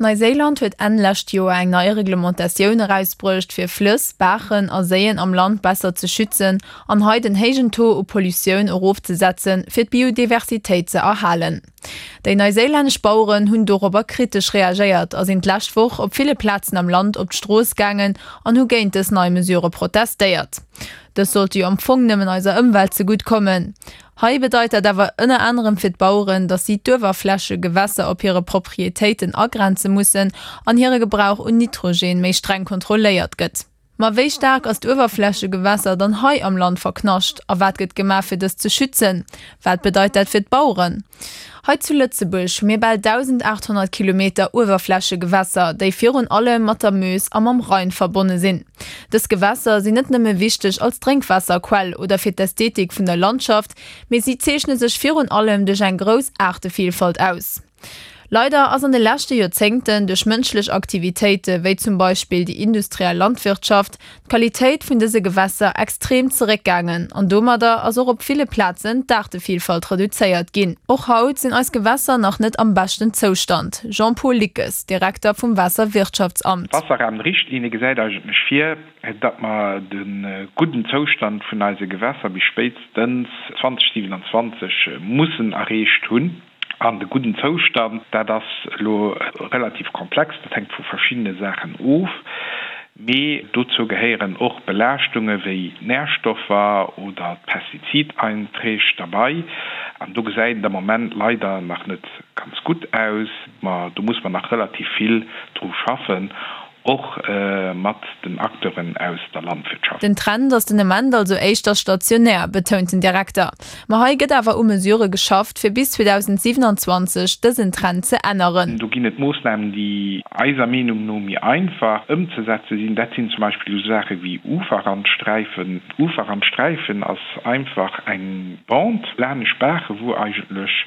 Neiséiland huet Enn lescht Joer eng nei Reglementatioun erausbruecht, fir Flëss, Baachen a Séien am Land besser ze schützen an hei den héijen Taux u Pollutioun erofzesetzen, fir d'Biodiversitéit ze erhalen. Déi neiséilännesch Baueren hunn dorobber kritesch reagéiert a sinn d'lescht Woch op ville Plazen am Land op d'Strooss gaangen an hu géint dës nei Mesure protestéiert. Dës sollte jo am Fong nëmmen eiser Ëmwelt zegutt kommen. Hei bedeit dat awer ënner anerem fir d'Baueren, datt si d'Uewerflächegewässer op hire Proprietéiten agrenze mussen an hire Gebrauch un Nitrogen méi streng kontrolléiert gëtt. Ma wéi staark ass d'Uewerflächegewässer dann hei am Land verknascht a wat gëtt gemaach fir dëst ze schützen? Wat bedeit dat fir d'Baueren? Hei zu Lëtzebuerg hu mir bal 1.800 Kilometer Uewerflächegewässer, déi virun allem mat der Meuse a mam Rhein verbonne sinn. Dës Gewässer sinn net nëmme wichteg als Drénkwaasserquell oder fir d'Ästhetik vun der Landschaft, mee si zeechne sech virun allem duerch eng grouss Aartevielfalt aus. Leider ass an de leschte Joerzéngten duerch mënschlech Aktivitéite wéi zum Beispill déi industriell Landwirtschaft d'Qualitéit vun dëse Gewässer extrem zeréckgaangen an domadder ass och op ville Plazen d'Aartevielfalt reduzéiert ginn. Och haut sinn eis Gewässer nach net am beschten Zoustand. Jean-Paul Lickes, Direkter vum Waasserwirtschaftsamt. D'Wasserrahmenrichtlinie gesäit eigentlech vir, datt mer de gudden Zoustand vun eise Gewässer bis spéitstens 2027 mussen erreecht hunn. An de gudden Zoustand, dat ass elo relativ komplex, dat hänkt vu verschiddene Saachen of, mee dozou gehéieren och Belaaschtunge wéi d'Närstoffer oder d'Pestizideinträg derbei. An do gesäit et am Moment leider nach net ganz gutt aus. Ma do muss mer nach relativ vill dru schaffen, Och mat den Acteuren aus der Landwirtschaft. Den Trend ass den Ament also éischter stationär, betount den Direkter. Ma hei gëtt awer u Mesurë geschafft, fir bis 2027 dësen Trend ze änneren. Do ginn et Moossnamen, déi eiser Meenung no méi einfach ëmzesetze sinn. Dat sinn zum Beispill esou Saache wéi Uferrandsträifen. Uferrandsträifen ass einfach eng Bande laanescht Baache wou eigentlech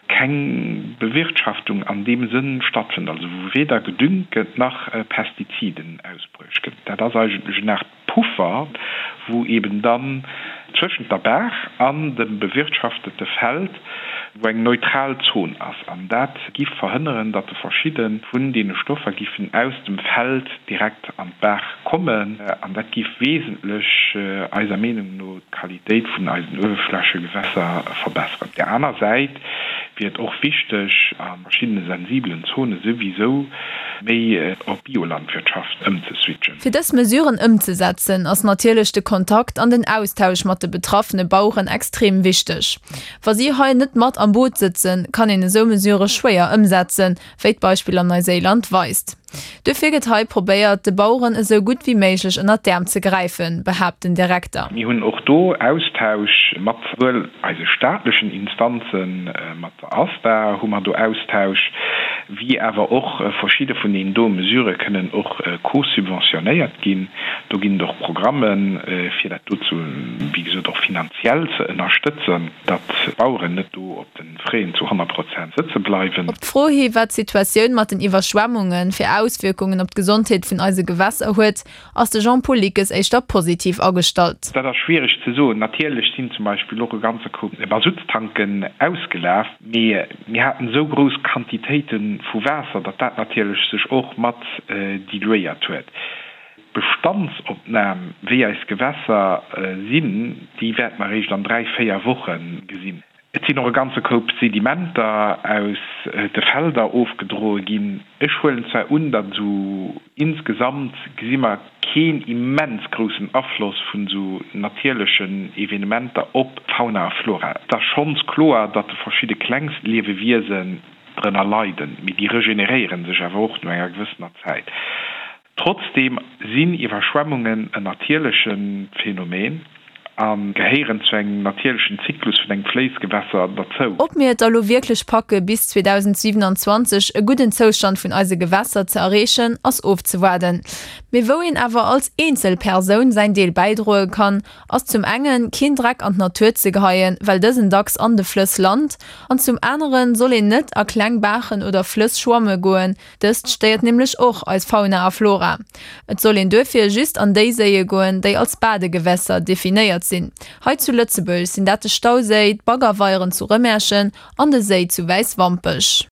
keng Bewirtschaftung an deem Sënn stattfënnt, also wou weder gedüngt gëtt nach Pestiziden ausbruecht gëtt. Dat ass eigentlech en Aart Puffer, wou eben dann zwëschent der Baach an dem bewirtschaftete Feld, wou eng neutral Zon ass. An dat giff verhënneren, datt verschidde vun deene Stoffer giffen aus dem Feld direkt an d'Baach kommen. An dat giff wesentlech, eiser Meenung no, d'Qualitéit vun eisen Uewerflächegewässer verbesseren. Op där aner Säit wier et och wichteg, a verschiddene sensibelen Zone souwisou méi op Biolandwirtschaft ëmzeswitchen. Fir dës Mesuren ëmzesetzen, ass natierlech de Kontakt an den Austausch mat de betraffene Baueren extrem wichteg. Wa si hei net mat am Boot sëtzen, kann een esou Mesurë schwéier ëmsetzen, wéi d'Beispill an Neuséiland weist. Duerfir gëtt hei probéiert, de Baueren esou gutt wéi méiglech ënnert d'Äerm ze gräifen, behaapt den Direkter. Mir hunn och do Austausch mat souwuel eise staatlechen Instanzen, mat der ASTA hu mer do Austausch, wéi awer och verschidde vun deenen do Mesurë kënnen och co-subventionéiert ginn. Do ginn et och Programmen, fir dat do zu, wéi gesot, och finanziell ze ënnerstëtzen, datt d'Baueren net do op de Fräen zu 100 Prozent sëtze bleiwen. Op d'Fro hi wat d'Situatioun mat den Iwwerschwemmunge fir Auswierkungen op d'Gesondheet vun eise Gewässer huet, ass de Jean-Paul Lickes éischter positiv agestallt. Dat ass schwiereg ze soen. Natierlech sinn zum Beispill och e ganze Koup Masuttstanken ausgelaf, mee mir haten esou grouss Quantitéite vu Waasser, datt dat natierlech sech och mat diluéiert huet. D'Bestandsopnam, wéi eis Gewässer sinn, déi wäerte mer eréischt an 3, 4 Woche gesinn. Et sinn och e ganze Koup Sedimenter aus de Felder ofgedroe ginn. Ech huelen zwar un, datt esou insgesamt gesi mer keen immens groussen Afloss vun esou natierlechen Evenementer op d'Fauna a Flora. Et ass schonns kloer, datt de verschidde klengst Liewewiesen drënner leiden, mee déi regeneréiere sech awer och no enger gewëssener Zäit. Trotzdeem sinn Iwwerschwemmungen en natierleche Phänomen a gehéieren zu engem natierlechen Zyklus vun engem Fléissgewässer derzou. Ob mir et da lo wierklech packe bis 2027 e gudden Zoustand vun eise Gewässer ze erreechen, ass ofzewaarden. Mee wou een awer als eenzel Persoun säin Deel bäidroe kann, ass zum engen keen Dreck an d'Natur ze geheien, well dësen dacks an de Flëss lant, an zum aneren soll een net a kleng Baachen oder Flëss schwamme goen, Dëst stéiert nämlech och eis Fauna a Flora. Et soll een duerfir just an déi Séie goen, déi als Badegewässer definéiert sinn. Hei zu Lëtzebuerg sinn dat de Stauséi, d'Baggerweieren zu Rëmerschen an de Séi zu Wäiswampech.